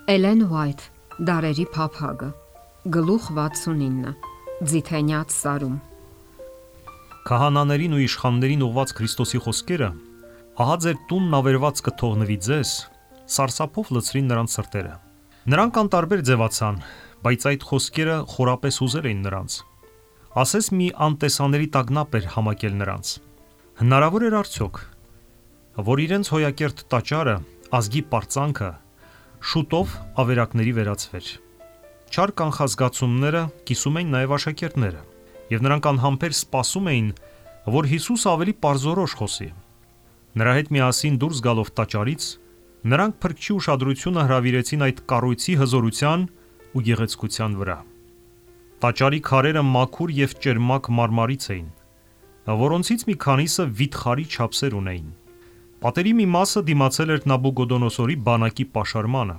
Էլեն Ուայթ, Դարերի փափագը, գլուխ 69, Ձիթենյաց սարում։ Քահանաներին ու իշխաններին ուղված Քրիստոսի խոսքերը, ահա ձեր տունն ավերված կթողնվի ձեզ, սարսափով լցրին նրանց սրտերը։ Նրանք անտարբեր ձևացան, բայց այդ խոսքերը խորապես հուզել էին նրանց։ Ասես մի անտեսանելի տագնապ էր համակել նրանց։ Հնարավոր էր արդյոք, որ իրենց հոյակերտ տաճարը, ազգի պարծանքը շուտով ավերակների վերածվեր։ Չար կանխազգացումները կիսում էին նաև աշակերտները, եւ նրանք անհամբեր սպասում էին, որ Հիսուս ավելի պարզորոշ խոսի։ Նրա հետ միասին դուրս գալով տաճարից, նրանք փրկչի ուշադրությունը հրավիրեցին այդ կառույցի հզորության ու գեղեցկության վրա։ Տաճարի քարերը մաքուր եւ ճերմակ մարմարից էին, որոնցից մի քանիսը վիթխարի չափսեր ունեին։ Պատերի մի մասը դիմացել էր Նաբուկոդոնոսորի բանակի պաշարմանը։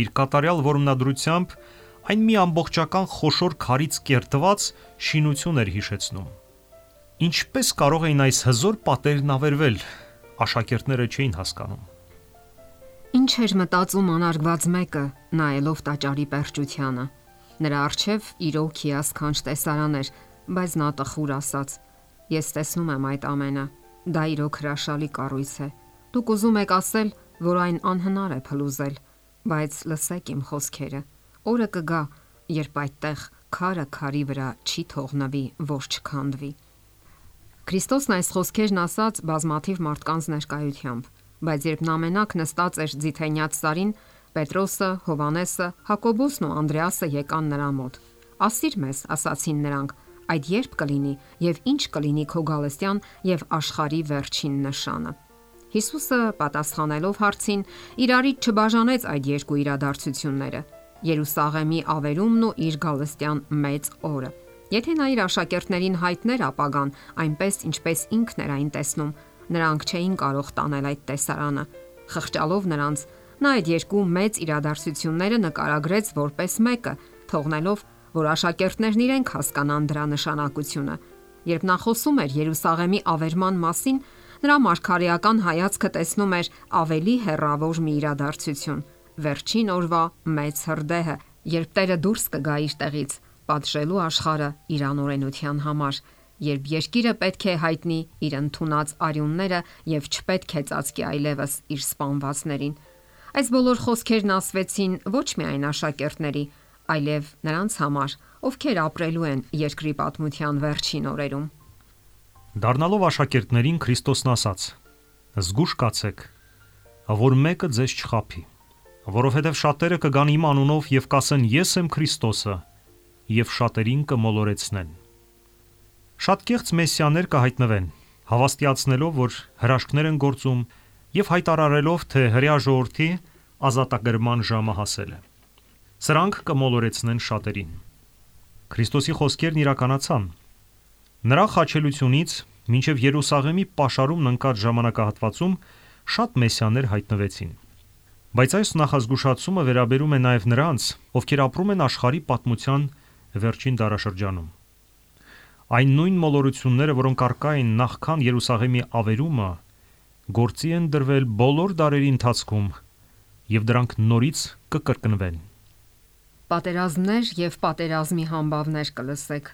Իր կատարյալ որմնադրությամբ այն մի ամբողջական խոշոր քարից կերտված շինություն էր հիշեցնում։ Ինչպես կարող էին այս հզոր պատերն ավերվել, աշակերտները չէին հասկանում։ Ինչ էր մտածում անարգված մեկը, նայելով տաճարի պերճությանը։ Նրա առջև իրոք հիասքանչ տեսարան էր, բայց նա տխուր ասաց. Ես տեսնում եմ այդ ամենը։ Դա իրոք հրաշալի կառույց է։ Դուք ուզում եք ասել, որ այն անհնար է փլուզել, բայց լսեք իմ խոսքերը։ Օրը կգա, երբ այդտեղ քարը քարի վրա չի թողնվի, ոչ չքանդվի։ Քրիստոսն այս խոսքերն ասաց բազմաթիվ մարդկանց ներկայությամբ, բայց երբ նա մենակ նստած էր Ձիթենյաց սարին, Պետրոսը, Հովանեսը, Հակոբոսն ու Անդրեասը եկան նրա մոտ։ Ասիր մեզ, ասացին նրանք, այդ երբ կլինի եւ ինչ կլինի քո գալստյան եւ աշխարհի վերջին նշանը։ Հիսուսը պատասխանելով հարցին, իրարից չբաժանեց այդ երկու իրադարձությունները՝ Երուսաղեմի ավերումն ու իր գալստյան մեծ օրը։ Եթե նա իր աշակերտներին հայտներ ապագան, այնպես ինչպես ինքն էր այն տեսնում, նրանք չէին կարող տանել այդ տեսարանը։ Խղճալով նրանց, նա այդ երկու մեծ իրադարձությունները նկարագրեց որպես մեկը, թողնելով, որ աշակերտներն իրենք հասկանան դրա նշանակությունը։ Երբ նա խոսում էր Երուսաղեմի ավերման մասին, նրա մարգարեական հայացքը տեսնում էր ավելի հեռավոր մի իրադարձություն՝ վերջին օրվա մեծ հրդեհը, երբ Տերը դուրս կգա իր տեղից, պատժելու աշխարհը իր անօրենության համար, երբ երկիրը պետք է հայտնի իր ընդունած արյունները եւ չպետք է ծածկի այլևս իր սպանվածներին։ Այս բոլոր խոսքերն ասվեցին ոչ միայն աշակերտների, այլև նրանց համար, ովքեր ապրելու են երկրի պատմության վերջին օրերում։ Դառնալով աշակերտներին Քրիստոսն ասաց. Զգուշ կացեք, որ մեկը ձեզ չխաբի, որովհետև շատերը կգան իմ անունով եւ կասեն ես եմ Քրիստոսը եւ շատերին կմոլորեցնեն։ Շատ կեղծ մեսիաներ կհայտնվեն, հավաստիացնելով, որ հրաշքներ են գործում եւ հայտարարելով, թե հրեա ժողովրդի ազատագրման ժամը հասել է։ Սրանք կմոլորեցնեն շատերին։ Քրիստոսի խոսքերն իրականացան։ Նրա խաչելությունից մինչև Երուսաղեմի պաշարումն ընկած ժամանակահատվածում շատ մեսիաներ հայտնվեցին։ Բայց այս նախազգուշացումը վերաբերում է նաև նրանց, ովքեր ապրում են աշխարհի պատմության վերջին դարաշրջանում։ Այն նույն մոլորությունները, որոնք առկա են նախքան Երուսաղեմի ավերումը, գործի են դրվել բոլոր դարերի ընթացքում, եւ դրանք նորից կկրկնվեն։ Պատերազմներ եւ պատերազմի համբավներ կլսեք։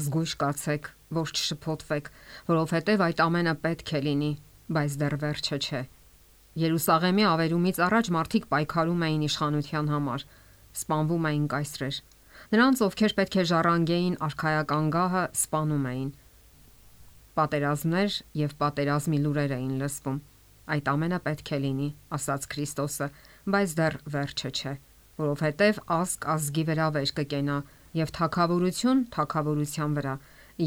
Զգույշ կացեք, որ չշփոթվեք, որովհետեւ այդ ամենը պետք է լինի, բայց դեռ վերջը չէ։ Երուսաղեմի ավերումից առաջ մարդիկ պայքարում էին իշխանության համար, սպանվում էին կայսրեր։ Նրանց, ովքեր պետք է ժառանգեին արքայական գահը, սպանում էին։ Պատերազմներ եւ պատերազմի լուրեր էին լսվում։ Այդ ամենը պետք է լինի, ասաց Քրիստոսը, բայց դեռ վերջը չէ, որովհետև ազգ ազգի վրա վեր կկենա եւ թագավորություն թագավորության վրա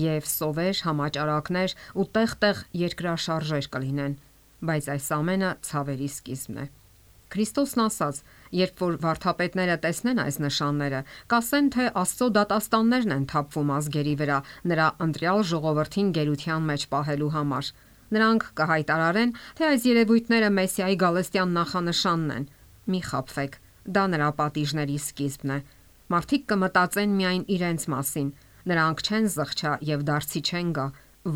եւ սովեր համաճարակներ ու տեղ-տեղ երկրաշարժեր կլինեն, բայց այս ամենը ցավերի սկիզբն է։ Քրիստոսն ասաց, երբ որ վարդապետները տեսնեն այս նշանները, կասեն, թե Աստծո դատաստաններն են թափվում ազգերի վրա նրա ընտրյալ ժողովրդին գերության մեջ պահելու համար։ Նրանք կհայտարարեն, թե այս երևույթները Մեսիայի գալստյան նախանշանն են։ Մի խաբվեք, դա նրա պատիժների սկիզբն է։ Մարդիկ կմտածեն միայն իրենց մասին։ Նրանք չեն զղջա եւ դարձի չեն գա,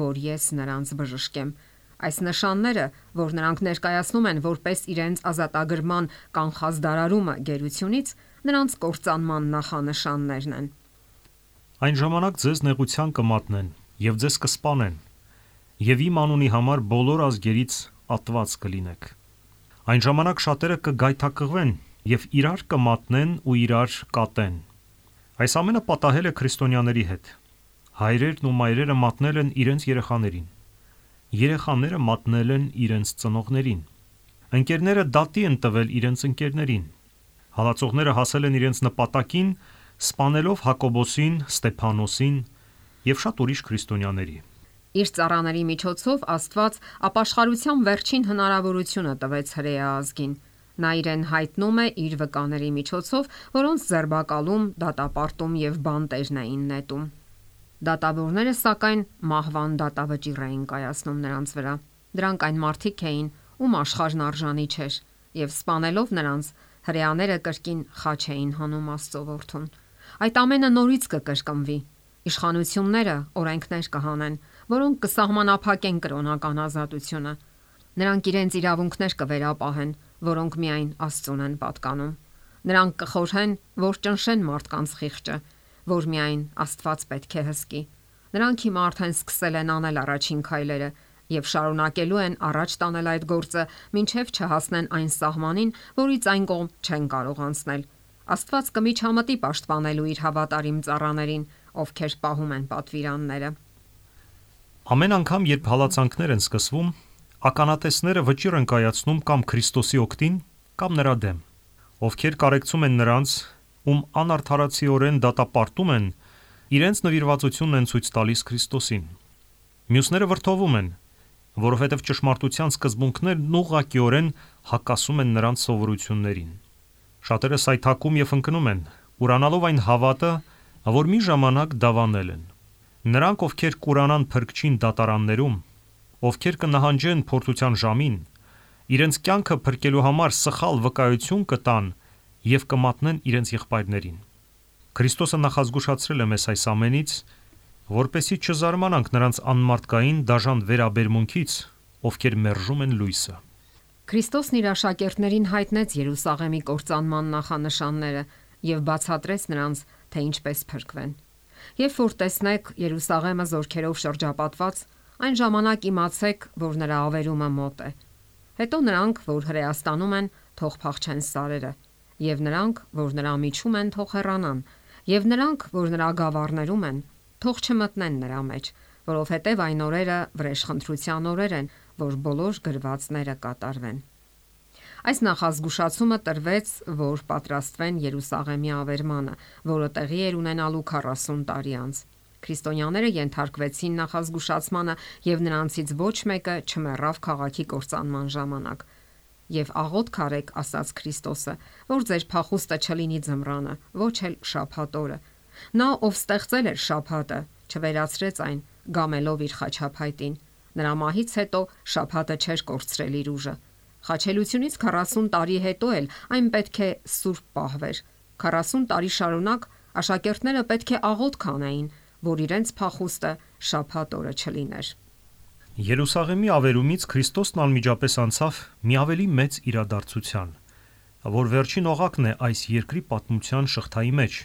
որ ես նրանց բժշկեմ։ Այս նշանները, որ նրանք ներկայացնում են որպես իրենց ազատագրման կանխած դարարումը գերությունից, նրանց կործանման նախանշաններն են։ Այն ժամանակ ձեզ նեղության կմատնեն եւ ձեզ կսպանեն, եւ իմ անունի համար բոլոր ազգերից ատված կլինեք։ Այն ժամանակ շատերը կգայթակղվեն եւ իրար կմատնեն ու իրար կատեն։ Այս ամենը պատահել է քրիստոնյաների հետ։ Հայրերն ու մայրերը մատնել են իրենց երեխաներին։ Երեխաները մատնել են իրենց ծնողներին։ Ընկերները դատի են տվել իրենց ընկերներին։ Հալածողները հասել են իրենց նպատակին, սպանելով Հակոբոսին, Ստեփանոսին եւ շատ ուրիշ քրիստոնյաների։ Իր ծառաների միջոցով Աստված ապաշխարության վերջին հնարավորությունը տվեց հրեա ազգին։ Նա իրեն հայտնում է իր վկաների միջոցով, որոնց ձերբակալում, դատապարտում եւ բանտերն էին նետում։ Դատավորները սակայն մահվան դատավճիռ էին կայացնում նրանց վրա։ Դրանք այն մարդիկ էին, ում աշխարհն արժանի չէր, եւ սպանելով նրանց, հրեաները կրկին խաչ էին հանում Աստծո որդուն։ Այդ ամենը նորից կկրկնվի։ Իշխանությունները օրենքներ կհանեն, որոնք կսահմանափակեն կրոնական ազատությունը։ Նրանք իրենց իրավունքներ կվերապահեն, որոնք միայն Աստծուն են պատկանում։ Նրանք կխորհեն, որ ճնշեն մարդկանց խիղճը, որ միայն Աստված պետք է հսկի։ Նրանք հիմա արդեն սկսել են անել առաջին քայլերը եւ շարունակելու են առաջ տանել այդ գործը, մինչեւ չհասնեն այն սահմանին, որից այն կողմ չեն կարող անցնել։ Աստված կմիջամտի պաշտպանելու իր հավատարիմ ծառաներին, ովքեր պահում են պատվիրանները։ Ամեն անգամ, երբ հալածանքներ են սկսվում, ականատեսները վճիռ են կայացնում կամ Քրիստոսի օգտին, կամ նրա դեմ, ովքեր կարեկցում են նրանց, ում անարդարացիորեն դատապարտում են, իրենց նվիրվածությունն են ցույց տալիս Քրիստոսին։ Մյուսները վրդովում են, որովհետև ճշմարտության սկզբունքներն ուղղակիորեն հակասում են նրանց սովորություններին։ Շատերը սայթաքում եւ ընկնում են, ուրանալով այն հավատը, որ մի ժամանակ դավանել են։ Նրանք, ովքեր կուրանան փրկչին դատարաններում, ովքեր կնահանջեն փորձության ժամին, իրենց կյանքը փրկելու համար սխալ վկայություն կտան եւ կմատնեն իրենց եղբայրներին։ Քրիստոսը նախազգուշացրել է մեզ այս ամենից, որպեսզի չզարմանանք նրանց անմարդկային դաժան վերաբերմունքից, ովքեր մերժում են լույսը։ Քրիստոսն իր աշակերտներին հայտնեց Երուսաղեմի կործանման նախանշանները եւ բացատրեց նրանց, թե ինչպես փրկվեն։ Երբ որ տեսնեք Երուսաղեմը զորքերով շրջապատված, այն ժամանակ իմացեք, որ նրա ավերումը մոտ է։ Հետո նրանք, որ հրեաստանում են, թող փախչեն սարերը, եւ նրանք, որ նրա միջում են, թող հեռանան, եւ նրանք, որ նրա գավառներում են, թող չմտնեն նրա մեջ, որովհետեւ այն օրերը վրեժխնդրության օրեր են, որ բոլոր գրվածները կատարվեն։ Այս նախազգուշացումը տրվեց, որ պատրաստվեն Երուսաղեմի ավերմանը, որը տեղի էր ունենալու 40 տարի անց։ Քրիստոնյաները ենթարկվեցին նախազգուշացմանը եւ նրանցից ոչ մեկը չմեռավ քաղաքի կործանման ժամանակ։ Եվ աղոթք արեք, ասաց Քրիստոսը, որ ձեր փախուստը չլինի ձմռանը, ոչ էլ շաբաթ օրը։ Նա, ով ստեղծել էր շաբաթը, չվերացրեց այն, գամելով իր խաչափայտին։ Նրա մահից հետո շաբաթը չէր կորցրել իր ուժը։ Խաչելությունից 40 տարի հետո էլ այն պետք է սուրբ պահվեր։ 40 տարի շարունակ աշակերտները պետք է աղոթք անեին, որ իրենց փախուստը շաբաթ օրը չլիներ։ Երուսաղեմի ավերումից Քրիստոսն անմիջապես անցավ մի ավելի մեծ իրադարձության, որ վերջին օղակն է այս երկրի պատմության շղթայի մեջ,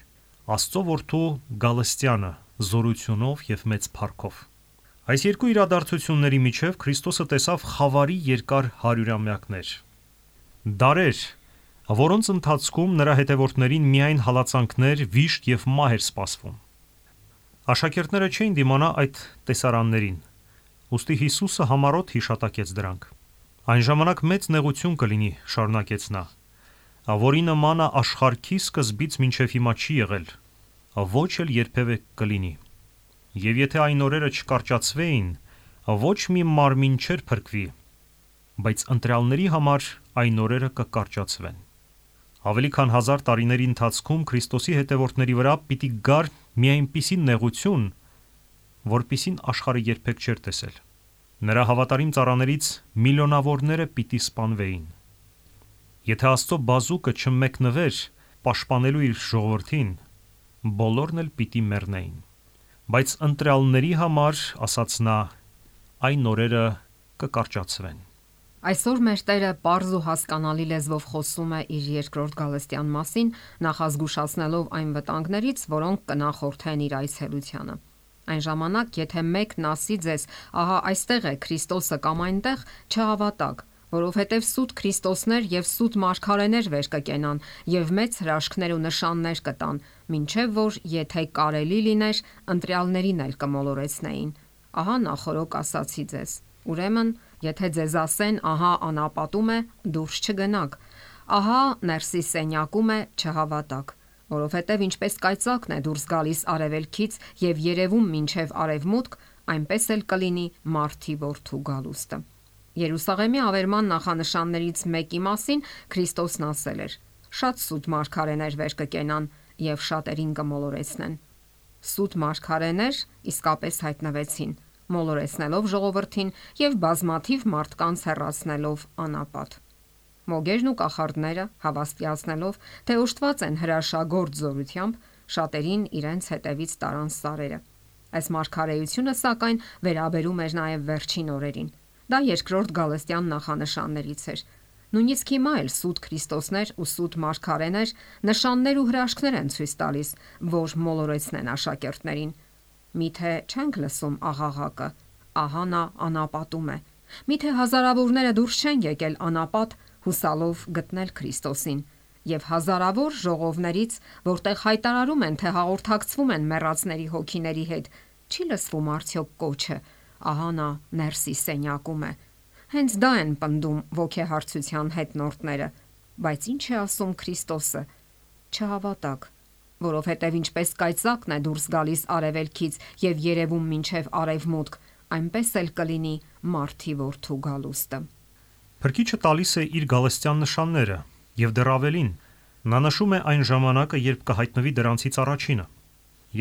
Աստծո որդու Գալստյանը զորությունով եւ մեծ փառքով։ Այս երկու իրադարձությունների միջև Քրիստոսը տեսավ խավարի երկար հարյուրամյակներ։ Դարեր, որոնց ընթացքում նրա հետևորդներին միայն հալածանքներ, վիշտ եւ մահ էր սպասվում։ Աշակերտները չէին դիմանա այդ տեսարաններին, ուստի Հիսուսը համառոտ հիշատակեց դրանք։ Այն ժամանակ մեծ նեղություն կլինի, շարունակեց նա, որի նմանը աշխարհքի սկզբից մինչև հիմա չի եղել, ոչ էլ երբևէ կլինի։ Եվ եթե այն օրերը չկարճացվեին, ոչ մի մարմին չէր փրկվի, բայց ընտրյալների համար այն օրերը կկարճացվեն։ Ավելի քան 1000 տարիների ընթացքում Քրիստոսի հետևորդների վրա պիտի գար մի այնպիսի նեղություն, որպիսին աշխարհը երբեք չէր տեսել։ Նրա հավատարիմ ծառաներից միլիոնավորները պիտի սպանվեին։ Եթե Աստծո բազուկը չմեկնվեր պաշտպանելու իր ժողովրդին, բոլորն էլ պիտի մեռնեին։ Բայց ընտրյալների համար, ասաց նա, այն օրերը կկարճացվեն։ Այսօր մեր Տերը պարզ ու հասկանալի լեզվով խոսում է իր երկրորդ գալստյան մասին, նախազգուշացնելով այն վտանգներից, որոնք կնախորդեն իր այցելությանը։ Այն ժամանակ, եթե մեկն ասի ձեզ, ահա այստեղ է Քրիստոսը կամ այնտեղ, չհավատաք, որովհետև սուտ Քրիստոսներ եւ սուտ մարգարեներ վեր կկենան եւ մեծ հրաշքներ ու նշաններ կտան, մինչեւ որ եթե կարելի լիներ, ընտրյալներին էլ կմոլորեցնեին։ Ահա նախորոք ասացի ձեզ։ Ուրեմն, եթե ձեզ ասեն, ահա անապատում է, դուրս չգնաք, ահա ներսի սենյակում է, չհավատաք, որովհետև ինչպես կայծակն է դուրս գալիս արևելքից եւ երևում մինչեւ արևմուտք, այնպես էլ կլինի Մարդի Որդու գալուստը։ Երուսաղեմի ավերման նախանշաններից մեկի մասին Քրիստոսն ասել էր. շատ սուտ մարգարեներ վեր կկենան եւ շատերին կմոլորեցնեն։ Սուտ մարգարեներ իսկապես հայտնվեցին, մոլորեցնելով ժողովրդին եւ բազմաթիվ մարդկանց հեռացնելով անապատ։ Մոգերն ու կախարդները, հավաստիացնելով, թե ուշտված են հրաշագործ զորությամբ, շատերին իրենց հետևից տարան սարերը։ Այս մարգարեությունը սակայն վերաբերում էր նաեւ վերջին օրերին։ Դա երկրորդ գալստյան նախանշաններից էր։ Նույնիսկ հիմա էլ սուտ Քրիստոսներ ու սուտ մարգարեներ նշաններ ու հրաշքներ են ցույց տալիս, որ մոլորեցնեն աշակերտներին։ Միթե չենք լսում աղաղակը, ահա նա անապատում է։ Միթե հազարավորները դուրս չեն եկել անապատ հուսալով գտնել Քրիստոսին, եւ հազարավոր ժողովներից, որտեղ հայտարարում են, թե հաղորդակցվում են մեռածների հոգիների հետ, չի լսվում արդյոք կոչը, ահա նա ներսի սենյակում է։ Հենց դա են պնդում ոգեհարցության հետնորդները, բայց ինչ է ասում Քրիստոսը։ Չհավատաք, որովհետև ինչպես կայծակն է դուրս գալիս արևելքից եւ երևում մինչեւ արևմուտք, այնպես էլ կլինի Մարդի Որդու գալուստը։ Փրկիչը տալիս է իր գալստյան նշանները, եւ դեռ ավելին, նա նշում է այն ժամանակը, երբ կհայտնվի դրանցից առաջինը,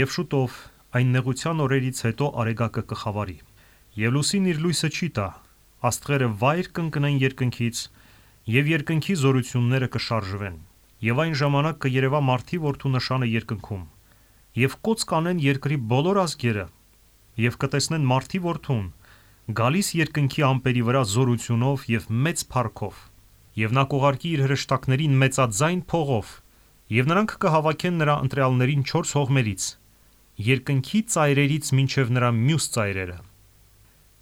եւ շուտով այն նեղության օրերից հետո արեգակը կխավարի, եւ լուսին իր լույսը չի տա, աստղերը վայր կընկնեն երկնքից, եւ երկնքի զորությունները կշարժվեն, եւ այն ժամանակ կերևա Մարդի Որդու նշանը երկնքում, եւ կոծ կանեն երկրի բոլոր ազգերը, եւ կտեսնեն Մարդի Որդուն գալիս երկնքի ամպերի վրա զորությունով եւ մեծ փառքով, եւ նա կուղարկի իր հրեշտակներին մեծաձայն փողով, եւ նրանք կհավաքեն նրա ընտրյալներին 4 հողմերից, երկնքի ծայրերից մինչեւ նրա մյուս ծայրերը։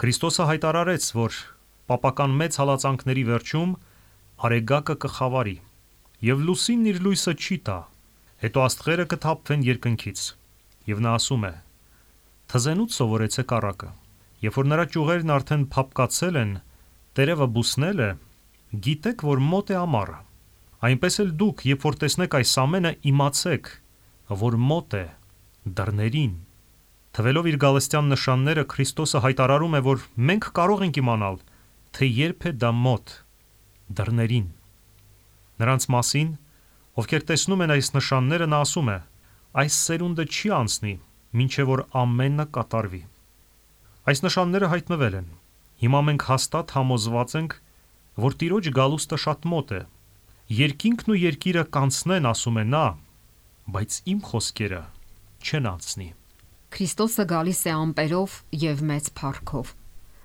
Քրիստոսը հայտարարեց, որ պապական մեծ հալածանքների վերջում արեգակը կխավարի, եւ լուսինն իր լույսը չի տա, հետո աստղերը կթափվեն երկնքից, եւ նա ասում է. «Թզենուց սովորեցեք առակը, երբ որ նրա ճյուղերն արդեն փափկացել են, տերևը բուսնել է, գիտեք, որ մոտ է ամառը։ Այնպես էլ դուք, երբ որ տեսնեք այս ամենը, իմացեք, որ մոտ է դռներին»։ Թվելով իր գալստյան նշանները, Քրիստոսը հայտարարում է, որ մենք կարող ենք իմանալ, թե երբ է դա մոտ դռներին։ Նրանց մասին, ովքեր տեսնում են այս նշանները, նա ասում է. այս սերունդը չի անցնի, մինչև որ ամենը կատարվի։ Այս նշանները հայտնվել են։ Հիմա մենք հաստատ համոզված ենք, որ Տիրոջ գալուստը շատ մոտ է։ Երկինքն ու երկիրը կանցնեն, ասում է նա, բայց իմ խոսքերը չեն անցնի։ Քրիստոսը գալիս է ամպերով եւ մեծ փառքով։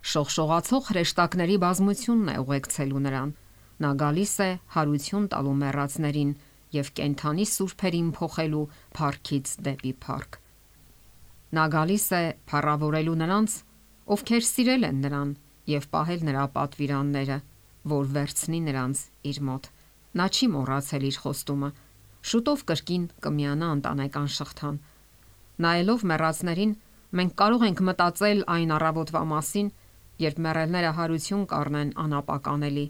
Շողշողացող հրեշտակների բազմությունն է ուղեկցելու նրան։ Նա գալիս է հարություն տալու մեռածներին եւ կենթանի սուրբերին փոխելու փառքից դեպի փառք։ Նա գալիս է փառավորելու նրանց, ովքեր սիրել են նրան եւ պահել նրա պատվիրանները, որ վերցնի նրանց իր մոտ։ Նա չի մոռացել իր խոստումը։ Շուտով կրկին կմիանա ընտանեկան շղթան։ Նայելով մեռածներին, մենք կարող ենք մտածել այն առավոտվա մասին, երբ մեռելները հարություն կառնեն անապականելի,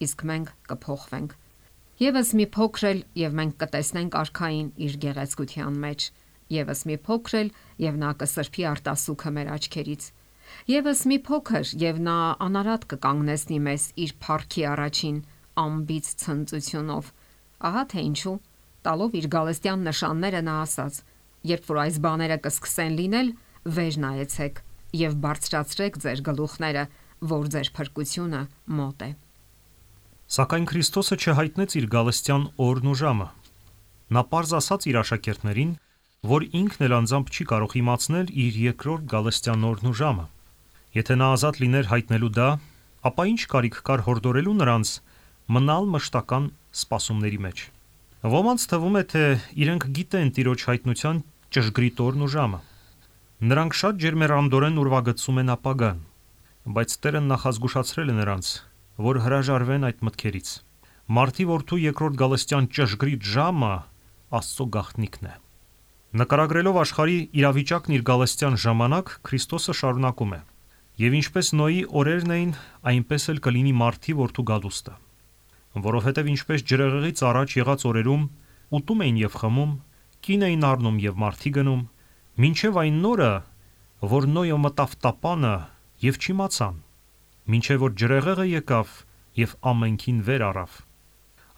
իսկ մենք կփոխվենք։ Եվս մի փոքր էլ եւ մենք կտեսնենք արքային իր գեղեցկության մեջ։ Եվս մի փոքր էլ եւ նա կսրբի արտասուքը մեր աչքերից։ Եվս մի փոքր եւ նա անարատ կկանգնեցնի մեզ իր փառքի առաջին ամբից ցնծությունով։ Ահա թե ինչու, տալով իր գալստյան նշանները նա ասաց. երբ որ այս բաները կսկսեն լինել, վեր նայեցեք եւ բարձրացրեք ձեր գլուխները, որ ձեր փրկությունը մոտ է։ Սակայն Քրիստոսը չհայտնեց իր գալստյան օրն ու ժամը։ Նա պարզ ասաց իր աշակերտներին, որ ինքն էլ անձամբ չի կարող իմացնել իր երկրորդ գալստյան օրն ու ժամը։ Եթե նա ազատ լիներ հայտնելու դա, ապա ինչ կարիք կար հորդորելու նրանց մնալ մշտական սպասումների մեջ։ Ոմանց թվում է, թե իրենք գիտեն Տիրոջ հայտնության ճշգրիտ օրն ու ժամը։ Նրանք շատ ջերմեռանդորեն ուրվագծում են ապագան, բայց Տերը նախազգուշացրել է նրանց, որ հրաժարվեն այդ մտքերից։ Մարդի որդու երկրորդ գալստյան ճշգրիտ ժամը Աստծո գաղտնիքն է։ Նկարագրելով աշխարհի իրավիճակն իր գալստյան ժամանակ, Քրիստոսը շարունակում է. «Եվ ինչպես Նոյի օրերն էին, այնպես էլ կլինի Մարդի որդու գալուստը։ Որովհետև ինչպես ջրեղեղից առաջ եղած օրերում ուտում էին եւ խմում, կին էին առնում եւ մարդի գնում, մինչեւ այն նորը, որ Նոյը մտավ տապանը եւ չիմացան, մինչեւ որ ջրեղեղը եկավ եւ ամենքին վեր առավ,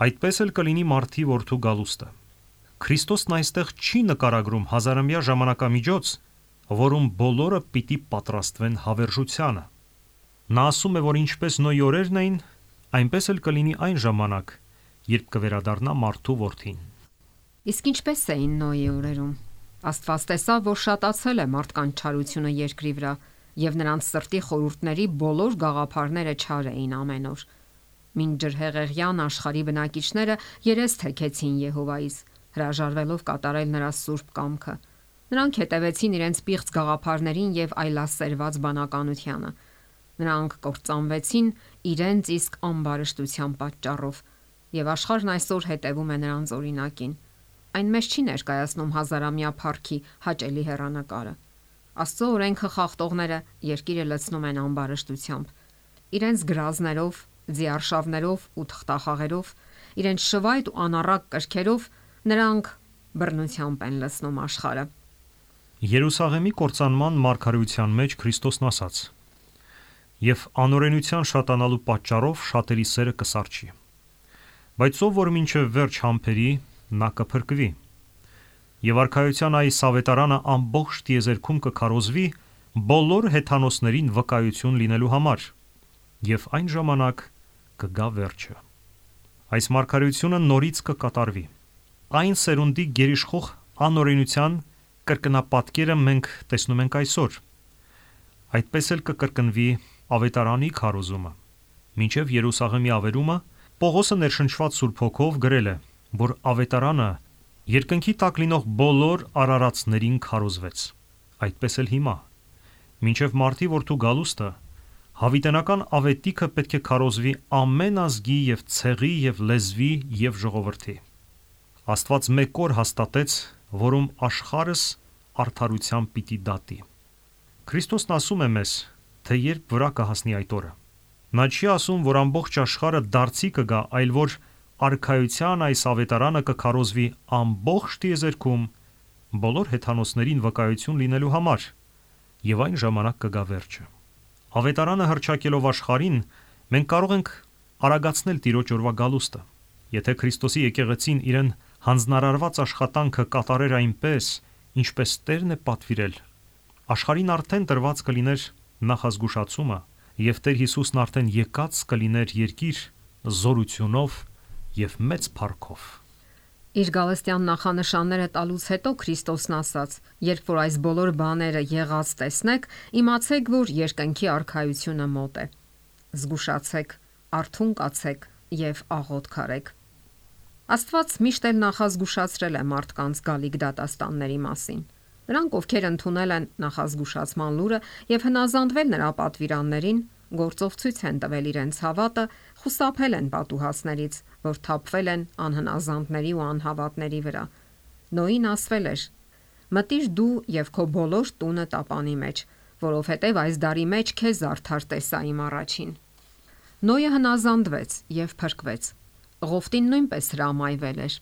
այդպես էլ կլինի Մարդի որդու գալուստը»։ Քրիստոսն այստեղ չի նկարագրում հազարամյա ժամանակամիջոց, որում բոլորը պիտի պատրաստվեն հավերժությանը։ Նա ասում է, որ ինչպես Նոյի օրերն էին, այնպես էլ կլինի այն ժամանակ, երբ կվերադառնա Մարդու որդին։ Իսկ ինչպես էին Նոյի օրերում։ Աստված տեսավ, որ շատացել է մարդկանց չարությունը երկրի վրա, եւ նրանց սրտի խորհուրդների բոլոր գաղափարները չար էին ամեն օր։ Մինչ ջրհեղեղյան աշխարհի բնակիչները երես թեքեցին Եհովայից, հրաժարվելով կատարել նրա սուրբ կամքը։ Նրանք հետևեցին իրենց պիղծ գաղափարներին եւ այլասերված բանականությանը։ Նրանք կործանվեցին իրենց իսկ ամբարշտության պատճառով, եւ աշխարհն այսօր հետևում է նրանց օրինակին։ Այն մեզ չի ներկայացնում հազարամյա փառքի հաճելի հեռանկարը։ Աստծո օրենքը խախտողները երկիրը լցնում են ամբարշտությամբ։ Իրենց գրազներով, ձիարշավներով ու թղթախաղերով, իրենց շվայտ ու անառակ կրքերով նրանք բռնությամբ են լցնում աշխարհը։ Երուսաղեմի կործանման մարգարեության մեջ Քրիստոսն ասաց. «Եվ անօրենության շատանալու պատճառով շատերի սերը կսարճի, բայց ով որ մինչև վերջ համբերի, նա կփրկվի։ Եվ արքայության այս ավետարանը ամբողջ տիեզերքում կքարոզվի բոլոր հեթանոսներին վկայություն լինելու համար, եւ այն ժամանակ կգա վերջը»։ Այս մարգարեությունը նորից կկատարվի։ Այն սերունդի գերիշխող անօրենության կրկնապատկերը մենք տեսնում ենք այսօր։ Այդպես էլ կկրկնվի ավետարանի քարոզումը։ Մինչև Երուսաղեմի ավերումը Պողոսը ներշնչված Սուրբ Հոգով գրել է, որ ավետարանը երկնքի տակ լինող բոլոր արարածներին քարոզվեց։ Այդպես էլ հիմա։ Մինչև Մարդի որդու գալուստը հավիտենական ավետիքը պետք է քարոզվի ամեն ազգի եւ ցեղի եւ լեզվի եւ ժողովրդի։ Աստված մեկ օր հաստատեց, որում աշխարհս արդարությամբ պիտի դատի։ Քրիստոսն ասում է մեզ, թե երբ վրա կհասնի այդ օրը։ Նա չի ասում, որ ամբողջ աշխարհը դարձի կգա, այլ որ արքայության այս ավետարանը կքարոզվի ամբողջ տիեզերքում բոլոր հեթանոսներին վկայություն լինելու համար, եւ այն ժամանակ կգա վերջը։ Ավետարանը հռչակելով աշխարհին, մենք կարող ենք արագացնել Տիրոջ օրվա գալուստը։ Եթե Քրիստոսի եկեղեցին իրեն հանձնարարված աշխատանքը կատարեր այնպես, ինչպես Տերն է պատվիրել, աշխարհին արդեն տրված կլիներ նախազգուշացումը, եւ Տեր Հիսուսն արդեն եկած կլիներ երկիր զորությունով եւ մեծ փառքով։ Իր գալստյան նախանշանները տալուց հետո Քրիստոսն ասաց. «Երբ որ այս բոլոր բաները եղած տեսնեք, իմացեք, որ երկնքի արքայությունը մոտ է։ Զգուշացեք, արթուն կացեք եւ աղոթք արեք»։ Աստված միշտ էլ նախազգուշացրել է մարդկանց գալիք դատաստանների մասին։ Նրանք, ովքեր ընդունել են նախազգուշացման լուրը եւ հնազանդվել նրա պատվիրաններին, գործով ցույց են տվել իրենց հավատը, խուսափել են պատուհասներից, որ թափվել են անհնազանդների ու անհավատների վրա։ Նոյին ասվել էր. «Մտիր դու եւ քո բոլոր տունը տապանի մեջ, որովհետեւ այս դարի մեջ քեզ արդար տեսա իմ առաջին»։ Նոյը հնազանդվեց եւ փրկվեց։ Ղովտին նույնպես հրամայվել էր.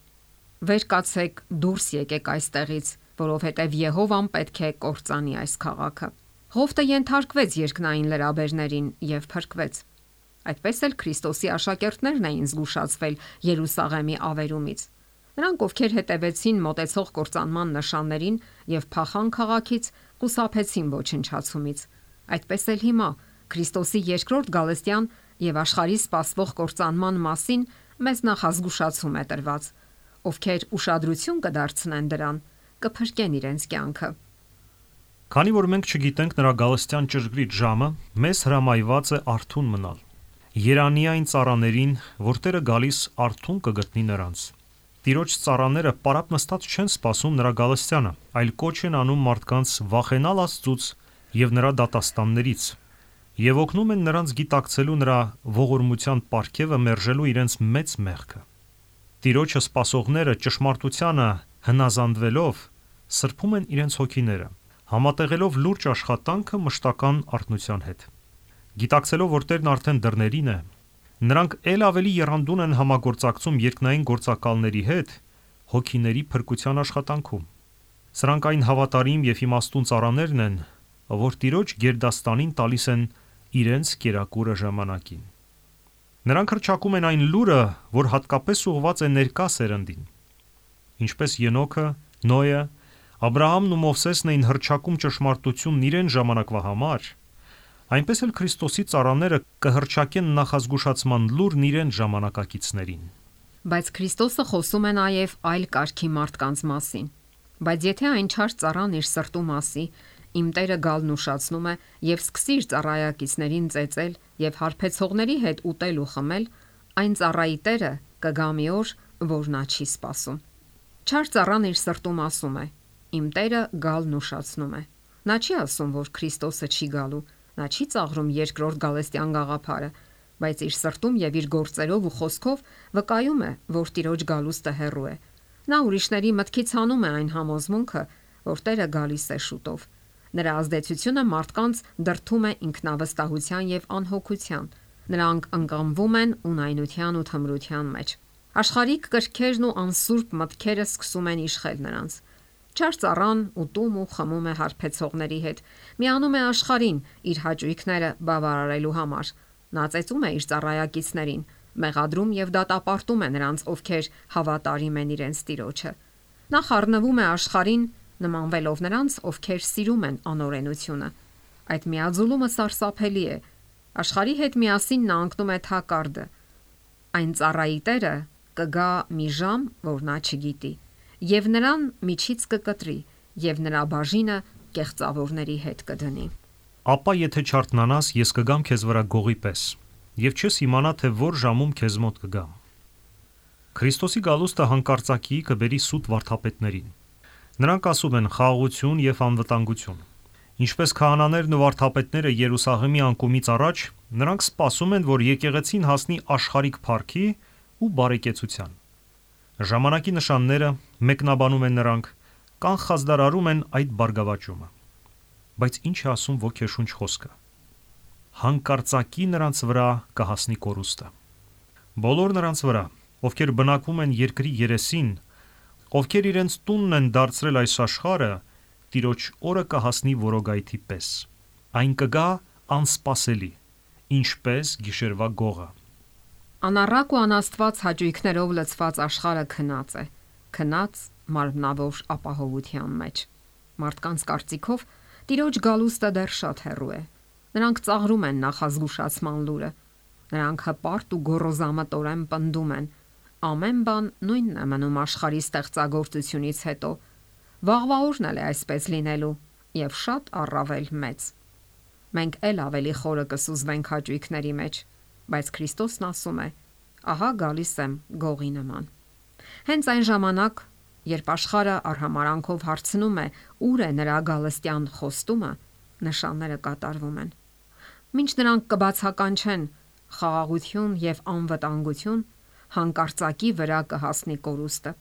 «Վեր կացեք, դուրս եկեք այստեղից, որովհետեւ Եհովան պետք է կործանի այս քաղաքը»։ Ղովտը ենթարկվեց երկնային լրաբերներին եւ փրկվեց։ Այդպես էլ Քրիստոսի աշակերտներն էին զգուշացվել Երուսաղեմի ավերումից։ Նրանք, ովքեր հետևեցին մոտեցող կործանման նշաններին եւ փախան քաղաքից, խուսափեցին ոչնչացումից։ Այդպես էլ հիմա Քրիստոսի երկրորդ գալստյան եւ աշխարհի սպասվող կործանման մասին մեզ նախազգուշացում է տրված։ Ովքեր ուշադրություն կդարձնեն դրան, կփրկեն իրենց կյանքը։ Քանի որ մենք չգիտենք նրա գալստյան ճշգրիտ ժամը, մեզ հրամայված է արթուն մնալ։ Երանի այն ծառաներին, որ Տերը գալիս արթուն կգտնի նրանց։ Տիրոջ ծառաները պարապ նստած չեն սպասում նրա գալստյանը, այլ կոչ են անում մարդկանց վախենալ Աստծուց եւ նրա դատաստաններից, եւ օգնում են նրանց գիտակցելու նրա ողորմության պարգևը մերժելու իրենց մեծ մեղքը։ Տիրոջը սպասողները ճշմարտությանը հնազանդվելով սրբում են իրենց հոգիները, համատեղելով լուրջ աշխատանքը մշտական արթնության հետ։ Գիտակցելով, որ Տերն արդեն դռներին է, նրանք ել ավելի եռանդուն են համագործակցում երկնային գործակալների հետ հոգիների փրկության աշխատանքում։ Սրանք այն հավատարիմ եւ իմաստուն ծառաներն են, որ Տիրոջ գերդաստանին տալիս են իրենց կերակուրը ժամանակին։ Նրանք հռչակում են այն լուրը, որ հատկապես ուղղված է ներկա սերնդին։ Ինչպես Ենոքը, Նոյը, Աբրահամն ու Մովսեսն էին հռչակում ճշմարտությունն իրեն ժամանակվա համար, այնպես էլ Քրիստոսի ծառաները կհռչակեն նախազգուշացման լուրն իրեն ժամանակակիցներին։ Բայց Քրիստոսը խոսում է նաև այլ կարգի մարդկանց մասին։ Բայց եթե այն չար ծառան իր սրտու մասի, իմ Տերը գալն ուշացնում է եւ սկսի իր ծառայակիցներին ծեծել եւ հարբեցողների հետ ուտել ու խմել, այն ծառայի Տերը կգա մի օր, որ նա չի սպասում։ Չար ծառան իր սրտում ասում է. իմ Տերը գալն ուշացնում է։ Նա չի ասում, որ Քրիստոսը չի գալու, նա չի ծաղրում երկրորդ գալստյան գաղափարը, բայց իր սրտում եւ իր գործերով ու խոսքով վկայում է, որ Տիրոջ գալուստը հեռու է։ Նա ուրիշների մտքից հանում է այն համոզմունքը, որ Տերը գալիս է շուտով։ Նրա ազդեցությունը մարդկանց դրդում է ինքնավստահության եւ անհոգության։ Նրանք ընկղմվում են ունայնության ու թմրության մեջ։ Աշխարհիկ կրքերն ու անսուրբ մտքերը սկսում են իշխել նրանց։ Չար ծառան ուտում ու խմում է հարբեցողների հետ, միանում է աշխարհին իր հաճույքները բավարարելու համար։ Նա ծեծում է իր ծառայակիցներին, մեղադրում եւ դատապարտում է նրանց, ովքեր հավատարիմ են իրենց Տիրոջը։ Նա խառնվում է աշխարհին, նմանվելով նրանց, ովքեր սիրում են անօրենությունը։ Այդ միաձուլումը սարսափելի է։ Աշխարհի հետ միասին նա ընկնում է թակարդը։ Այն ծառայի Տերը կգա մի ժամ, որ նա չգիտի, եւ նրան միջից կկտրի, եւ նրա բաժինը կեղծավորների հետ կդնի։ Ապա եթե չարթնանաս, ես կգամ քեզ վրա գողի պես, եւ չես իմանա, թե որ ժամում քեզ մոտ կգամ։ Քրիստոսի գալուստը հանկարծակիի կբերի սուտ վարդապետներին։ Նրանք ասում են խաղաղություն եւ անվտանգություն։ Ինչպես քահանաներն ու վարդապետները Երուսաղեմի անկումից առաջ, նրանք սպասում են, որ եկեղեցին հասնի աշխարհիկ փառքի ու բարեկեցության։ Ժամանակի նշանները մեկնաբանում են նրանք, կանխազդարարում են այդ բարգավաճումը։ Բայց ինչ է ասում ոգեշունչ խոսքը։ Հանկարծակի նրանց վրա կհասնի կորուստը։ Բոլոր նրանց վրա, ովքեր բնակվում են երկրի երեսին, ովքեր իրենց տունն են դարձրել այս աշխարհը, Տիրոջ օրը կհասնի որոգայթի պես։ Այն կգա անսպասելի, ինչպես գիշերվա գողը։ Անառակ ու անաստված հաճույքներով լցված աշխարհը քնած է, քնած մարմնավոր ապահովության մեջ։ Մարդկանց կարծիքով Տիրոջ գալուստը դեռ շատ հեռու է։ Նրանք ծաղրում են նախազգուշացման լուրը։ Նրանք հպարտ ու գոռոզամտորեն պնդում են. ամեն բան նույնն է մնում աշխարհի ստեղծագործությունից հետո։ Վաղվա օրն էլ է այսպես լինելու եւ շատ առավել մեծ։ Մենք ել ավելի խորը կսուզվենք հաճույքների մեջ, բայց Քրիստոսն ասում է. ահա գալիս եմ գողի նման։ Հենց այն ժամանակ, երբ աշխարհը արհամարանքով հարցնում է ուր է նրա գալստյան խոստումը, նշանները կատարվում են։ Մինչ նրանք կբացականչեն խաղաղություն եւ անվտանգություն, հանկարծակի վրա կհասնի կորուստը։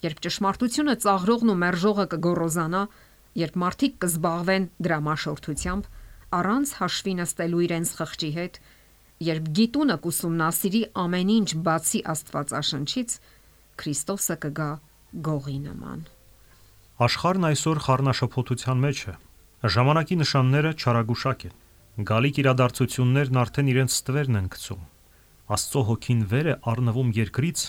Երբ ճշմարտությունը ծաղրողն ու մերժողը կգոռոզանա, երբ մարդիկ կզբաղվեն դրամաշորթությամբ, առանց հաշվի նստելու իրենց խղճի հետ, երբ գիտունը կուսումնասիրի ամեն ինչ բացի Աստվածաշնչից, Քրիստոսը կգա գողի նման։ Աշխարհն այսօր խառնաշփոթության մեջ է։ Ժամանակի նշանները չարագուշակ են։ Գալիք իրադարձություններն արդեն իրենց ստվերն են գցում։ Աստծո հոգին վեր է առնվում երկրից,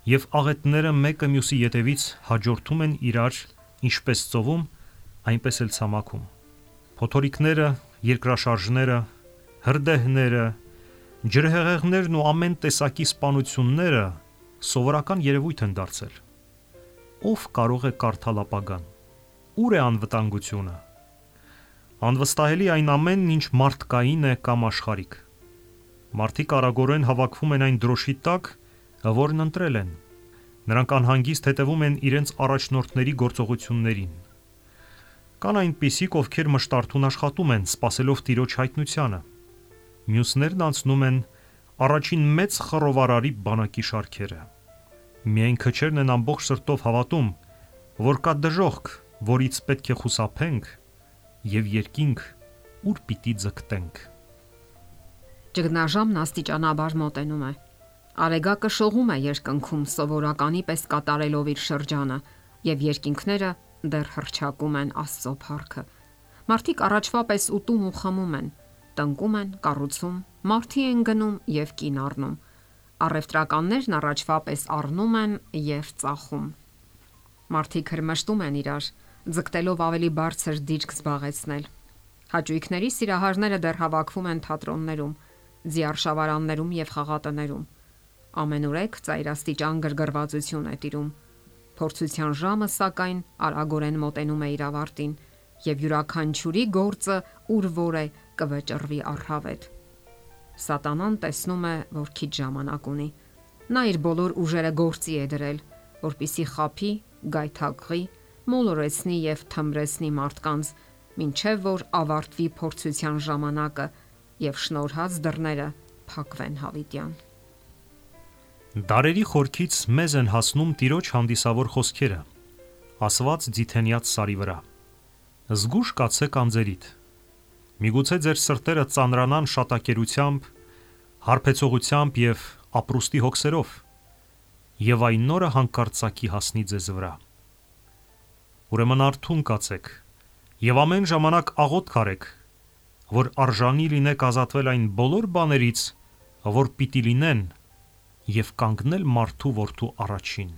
եւ աղետները մեկը մյուսի ետևից հաջորդում են իրար, ինչպես ծովում, այնպես էլ ցամաքում։ Փոթորիկները, երկրաշարժները, հրդեհները, ջրհեղեղներն ու ամեն տեսակի սպանությունները սովորական երևույթ են դարձել։ Ով կարող է կարդալ ապագան։ Ուր է անվտանգությունը։ Անվստահելի այն ամենն, ինչ մարդկային է կամ աշխարհիկ։ Մարդիկ արագորեն հավաքվում են այն դրոշի տակ, որն ընտրել են։ Նրանք անհանգիստ հետևում են իրենց առաջնորդների գործողություններին։ Կան այնպիսիք, ովքեր մշտարթուն աշխատում են, սպասելով Տիրոջ հայտնությանը։ Մյուսներն անցնում են առաջին մեծ խռովարարի բանակի շարքերը։ Միայն քչերն են ամբողջ սրտով հավատում, որ կա դժոխք, որից պետք է խուսափենք, եւ երկինք, ուր պիտի ձգտենք։ Ճգնաժամն աստիճանաբար մոտենում է։ Արեգակը շողում է երկնքում սովորականի պես կատարելով իր շրջանը, եւ երկինքները դեռ հռչակում են Աստծո փառքը։ Մարդիկ առաջվա պես ուտում ու խմում են, տնկում են, կառուցում, մարդի են գնում եւ կին առնում։ Առևտրականներն առաջվա պես առնում են եւ ծախում։ Մարդիկ հրմշտում են իրար, ձգտելով ավելի բարձր դիրք զբաղեցնել։ Հաճույքների սիրահարները դեռ հավաքվում են թատրոններում, ձիարշավարաններում եւ խաղատներում։ Ամենուրեք ծայրաստիճան գրգռվածություն է տիրում։ Փորձության ժամը սակայն արագորեն մոտենում է իր ավարտին, եւ յուրաքանչյուրի գործը ուր որ է կվճռվի առհավետ։ Սատանան տեսնում է, որ քիչ ժամանակ ունի։ Նա իր բոլոր ուժերը գործի է դրել, որպիսի խափի, գայթակղի, մոլորեցնի եւ թմրեցնի մարդկանց, մինչեւ որ ավարտվի փորձության ժամանակը եւ շնորհած դռները փակվեն հավիտյան։ Դարերի խորքից մեզ են հասնում Տիրոջ հանդիսավոր խոսքերը, ասված Ձիթենյաց սարի վրա։ Զգուշ կացեք անձերիդ։ Միգուցե ձեր սրտերը ծանրանան շատակերությամբ, հարբեցողությամբ եւ ապրուստի հոգսերով, եւ այն նորը հանկարծակի հասնի ձեզ վրա։ Ուրեմն արթուն կացեք եւ ամեն ժամանակ աղոթք արեք, որ արժանի լինեք ազատվել այն բոլոր բաներից, որ պիտի լինեն, եւ կանգնել մարդու որդու առաջին։